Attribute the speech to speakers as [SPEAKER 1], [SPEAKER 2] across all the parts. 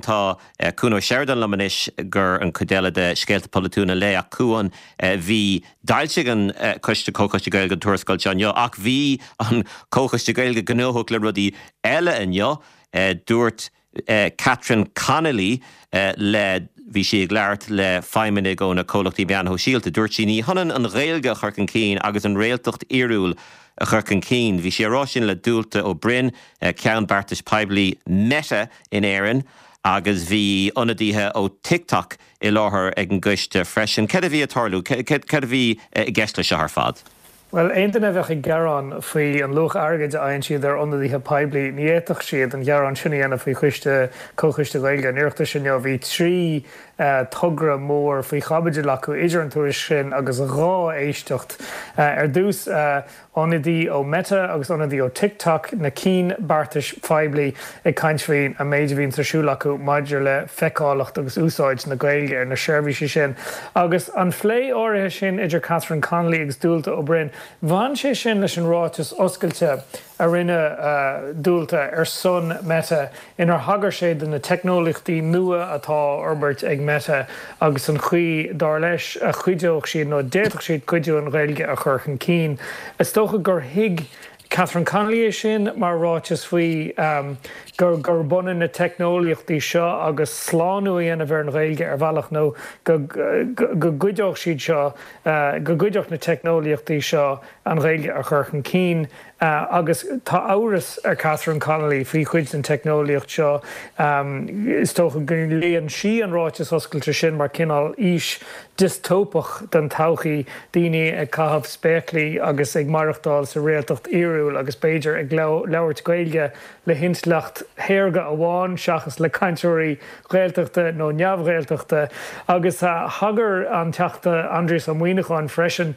[SPEAKER 1] Tá Cuan Ó Seireadáin liom anois gur an chuid eile de Scéalta Polaitiúla an Lae ach Cuan, bhí, d'fhoilsigh an Coiste, Comhchoiste Gaeilge an tuarascáil seo inniu ach bhí an Comhchoiste Gaeilge gnóthach le rudaí eile inniu. Dúirt Catherine Connolly le, bhí sí ag labhairt le feidhmeannaigh ó na comhlachtaí meáin shóisialta, dúirt sí ní hionann an Ghaeilge a chur chun cinn agus an réaltacht fhíorúil a chur chun cinn. Bhí sí ag rá sin le Dualta Ó Broin, Ceann Beartais Poiblí Meta in Éirinn agus bhí ionadaithe ó TikTok i láthair ag an gcoiste freisin. Céard a bhí ag tarlú? Céard a bhí i gceist leis seo ar fad?
[SPEAKER 2] Bhuel, aon duine a bheadh ag gearán faoi an luach airgid a fhaigheann siad ar ionadaithe poiblí, ní fhéadfadh siad an gearán sin a dhéanamh faoi choiste, Comhchoiste Gaeilge an Oireachtais inniu. Bhí 3 togra mór faoi chaibidil acu idir an tuairisc sin agus 2 éisteacht. Ar dtús, ionadaí ó Meta agus ionadaí ó TikTok, na cinn beartais phoiblí, ag caint faoin an méid a bhíonns ar siúl acu maidir le feiceálacht agus úsáid na Gaeilge ar na seirbhísí sin. Agus an phlé áirithe sin idir Catherine Connolly agus Dualta Ó Broin, bhain sé sin leis an ráiteas oscailte a rinne Dualta ar son Meta inar thagair sé do na teicneolaíochtaí nua atá á fhorbairt ag Meta agus an chaoi, dar leis, a chuideodh siad nó a d'fhéadfadh siad cuidiú an Ghaeilge a chur chun cinn. Is dócha gur thuig Catherine Connolly é sin mar ráiteas faoi gur gurb ionann na teicneolaíochtaí seo agus slánú a dhéanamh ar an Ghaeilge ar bhealach nó go go gcuideodh siad seo, go gcuideodh na teicneolaíochtaí seo an Ghaeilge a chur chun cinn. Agus tá amhras ar Catherine Connolly faoi chuid den teicneolaíocht seo. Is dócha go léann sí an ráiteas oscailte sin mar cineál fhís diostóipeach den todhchaí, daoine ag caitheamh spéaclaí agus ag maireachtáil sa réaltacht fhíorúil agus b'fhéidir ag labhairt Gaeilge le hintleacht shaorga amháin seachas le cainteoirí Gaeltachta nó neamh-Ghaeltachta. Agus thagair an Teachta Aindrias Ó Muimhneacháin freisin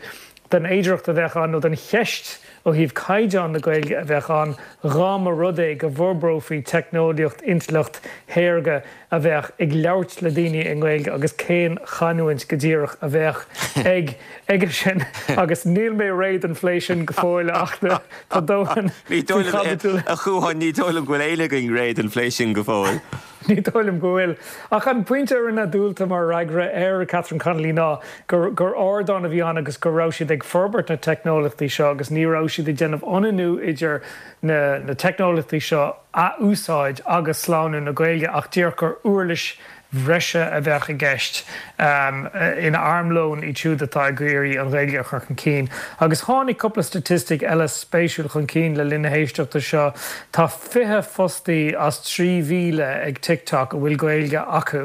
[SPEAKER 2] den fhéidearthacht a bheadh ann, nó den cheist ó thaobh caighdeán na Gaeilge a bheadh ann dhá mba rud é go bhforbrófaí teicneolaíocht intleacht shaorga a bheadh ag labhairt le daoine i nGaeilge agus cén chanúint go díreach a bheadh ag aige sin agus níl mé réidh don phlé sin go fóill ach tá dóthain
[SPEAKER 1] Ní dóigh
[SPEAKER 2] faoi
[SPEAKER 1] liom,
[SPEAKER 2] chaibidil.
[SPEAKER 1] a Chuain, ní dóigh liom go bhfuil éinne againn réidh don phlé sin go fóill.
[SPEAKER 2] Ní dóigh liom go bhfuil. Ach an pointe a rinne Dualta mar fhreagra ar Catherine Connolly ná gur gur ardán a bhí ann agus go raibh siad ag forbairt na teicneolaíochtaí seo agus ní raibh siad ag déanamh ionannú idir na na teicneolaíochtaí seo a úsáid agus slánú na Gaeilge ach díreach gur uirlis bhreise a bheadh i gceist ina armlón iad siúd atá ag iarraidh an Ghaeilge a chur chun cinn. Agus tháinig cúpla staitistic eile spéisiúil chun cinn le linn na héisteachta seo. Tá 20 fostaí as 3,000 ag TikTok a bhfuil Gaeilge acu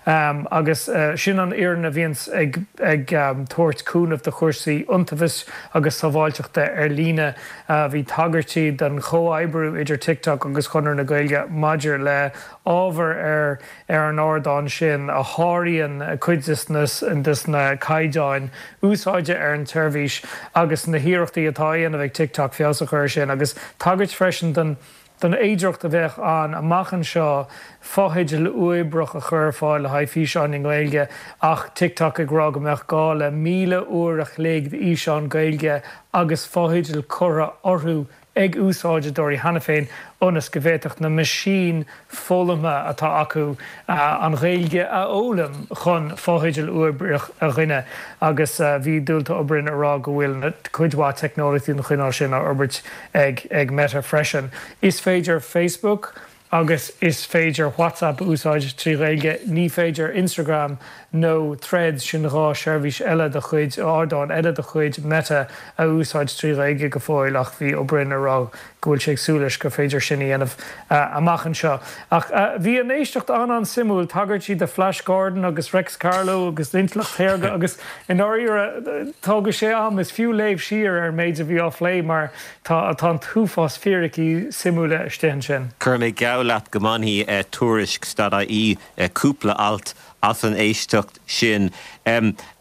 [SPEAKER 2] agus sin an fhoireann a bhíonns ag ag tabhairt cúnamh do chúrsaí iontaobhais agus sábháilteachta ar líne. Bhí tagairtí don chomhoibriú idir TikTok agus Chonradh na Gaeilge maidir le ábhar ar ar an ardán sin a sháraíonn cuid de na caighdeáin úsáide ar an tseirbhís agus na hiarrachtaí atá á dhéanamh ag TikTok feabhas a chur air sin agus tagairt freisin don don fhéidearthacht a bheadh ann amach anseo fotheidil uathoibríoch a chur ar fáil le haghaidh físeáin i nGaeilge ach TikTok ag rá go mbeadh gá le 1,000 uair a chloig d'fhíseáin Gaeilge agus fotheidil curtha orthu ag úsáideoirí cheana féin ionas go bhféadfadh na meaisín foghlamtha atá acu an Ghaeilge a fhoghlaim chun fotheidil uathoibríoch a ghineadh agus bhí Dualta Ó Broin ag rá go bhfuil cuid mhaith teicneolaíochtaí den chineál sin á fhorbairt ag Meta freisin. Is féidir Facebook agus is féidir WhatsApp a úsáid trí Ghaeilge. Ní féidir Instagram nó Threads, sin 2 sheirbhís eile de chuid, ardán eile de chuid Meta, a úsáid trí Ghaeilge go fóill ach bhí Ó Broin ag rá go bhfuil sé ag súil leis gur féidir sin a dhéanamh amach anseo. Ach bhí an éisteacht an-an-suimiúil, tagairtí do Flash Gordon agus Reics Carló agus intleacht shaorga agus i ndáiríre tógfaidh sé am, is fiú léamh siar ar an méid a bhí á phlé mar Tá tá an t-uafás fíricí suimiúla istigh ansin.
[SPEAKER 1] Cuirfidh mé geall leat go mbainfidh Tuairisc dot ie cúpla alt as an éisteacht sin.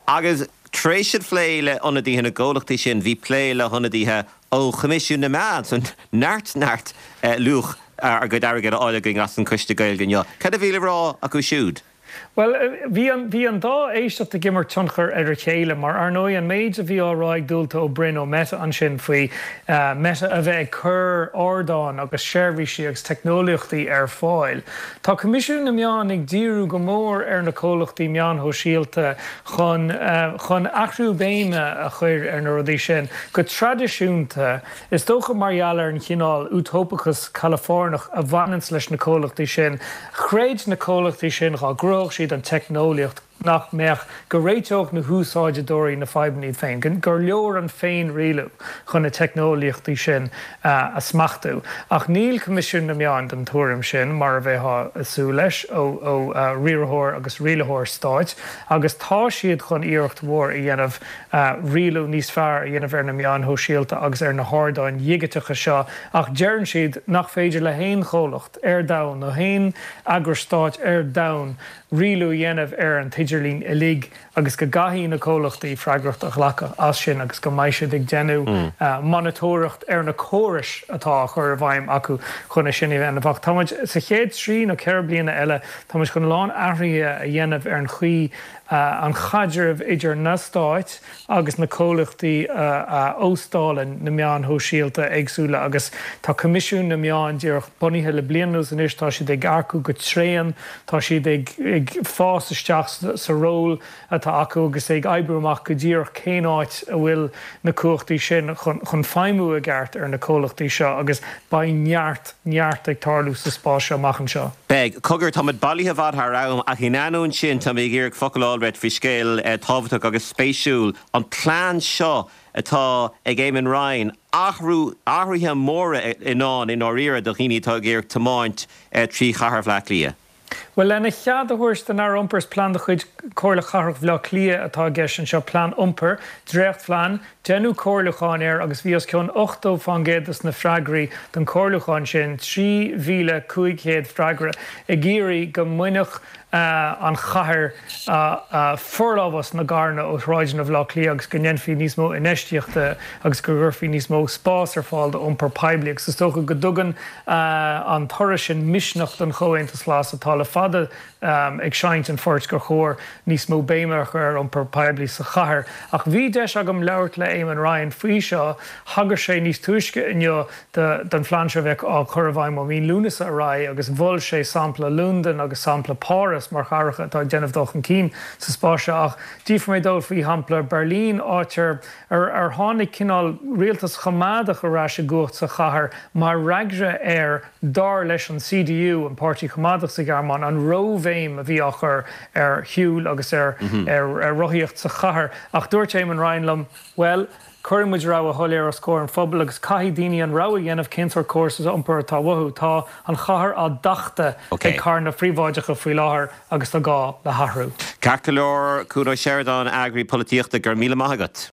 [SPEAKER 1] Agus tar éis an phlé le hionadaithe na gcomhlachtaí sin, bhí plé le hionadaithe ó Choimisiún na Meán. So neart neart luach ár gcuid airgid á fháil againn as an Choiste Gaeilge inniu. Cad a bhí le rá acu siúd?
[SPEAKER 2] Bhuel, bhí an, bhí an dá éisteacht ag imirt tionchar ar a chéile mar, ar ndóigh, an méid a bhí á rá ag Dualta Ó Broin ó Meta ansin faoi Meta a bheith ag cur ardáin agus seirbhísí agus teicneolaíochtaí ar fáil. Tá Coimisiún na Meán ag díriú go mór ar na comhlachtaí meáin shóisialta chun, chun athrú béime a chur ar na rudaí sin. Go traidisiúnta, Is dócha mar gheall ar an chineál útóipeachas Calafóirneach a bhaineanns leis na comhlachtaí sin, chreid na comhlachtaí sin dhá gcruthódh siad an teicneolaíocht nach mbeadh, go réiteodh na húsáideoirí na fadhbanna iad féin, gur leor an féin-rialú chun na teicneolaíochtaí sin a smachtú. Ach níl Coimisiún na Meán den tuairim sin, mar a bheifeá ag súil leis ó riarthóir agus rialaitheoir stáit, agus tá siad chun iarracht mhór a dhéanamh rialú níos fearr a dhéanamh ar na meáin shóisialta agus ar na hardáin dhigiteacha seo ach deireann siad nach féidir le haon chomhlacht ar domhan nó haon eagras stáit ar domhan rialú a dhéanamh ar an t-idirlíon uilig agus go gcaithfidh na comhlachtaí freagracht a ghlacadh as sin agus go mbeidh siad ag déanamh monatóireacht ar na córais atá á chur i bhfeidhm acu chun é sin a dhéanamh. Ach tá muid sa chéad trí nó 4 bliana eile tá muid chun a lán athruithe a dhéanamh ar an chaoi an chaidreamh idir na stáit agus na comhlachtaí a óstálann na meáin shóisialta éagsúla agus tá Coimisiún na Meán díreach bunaithe le bliain anuas anois, tá siad ag earcú go tréan, tá siad ag fás isteach sa ról atá acu agus ag oibriú amach go díreach cén áit a bhfuil na cumhachtaí sin chun feidhmiú i gceart ar na comhlachtaí seo agus beidh neart, neart ag tarlú sa spás seo amach anseo.
[SPEAKER 1] Beidh. Cogar, táimid bailithe i bhfad thar am, ach in ainneoin sin, tá mé ag iarraidh focal a fháil uait faoi scéal tábhachtach agus spéisiúil, an plean seo atá ag Eamon Ryan, athrú, athruithe móra i ndán i ndáiríre do dhaoine atá ag iarraidh tiomáint trí chathair Bhaile Átha Cliath.
[SPEAKER 2] Bhuel, lena chead a thabhairt don Aire Iompair, is plean de chuid Chomhairle Chathrach Bhaile Átha Cliath atá i gceist anseo, plean iompair, dréachtphlean, Deineadh comhairliúchán air agus bhí os cionn 80 fán gcéad dos na freagraí don chomhairliúchán sin, 3,500 freagra, ag iarraidh go mbainfeadh an chathair forlámhas na gcarranna ó shráideanna Bhaile Átha Cliath agus go ndéanfaí níos mó infheistíochta agus go gcuirfí níos mó spás ar fáil d'iompar poiblí agus is dócha go dtugann an toradh sin misneach don Chomhaontas Glas atá le fada ag seinnt an phoirt gur chóir níos mó béime a chur ar iompar poiblí sa chathair. Ach bhí deis agam labhairt le Eamon Ryan faoi seo. Thagair sé níos túisce inniu don phlean seo a bheadh á chur i bhfeidhm ó mhí Lúnasa ar aghaidh agus mhol sé sampla Londain agus sampla Páras mar chathracha atá ag déanamh dul chun cinn sa spás seo. Ach d'fhiafraigh mé dó faoi shampla Berlin, áit ar ar tháinig cineál rialtas choimeádach ar ais i gcumhacht sa chathair mar fhreagra ar, dar leis an CDU, an páirtí coimeádach sa Ghearmáin, an róbhéim a bhí á chur ar shiúl agus ar rothaíocht sa chathair. Ach dúirt Eamon Ryan liom, bhuel, cuirfidh muid rogha shoiléir os comhair an phobail agus caithfidh daoine an rogha a dhéanamh cén sórt córas iompair atá uathu. Tá an chathair á tachtadh ag carranna príobháideacha faoi láthair agus tá gá le hathrú.
[SPEAKER 1] Ceart go leor, Cuan Ó Seireadáin, eagraí polaitíochta, go raibh míle maith agat.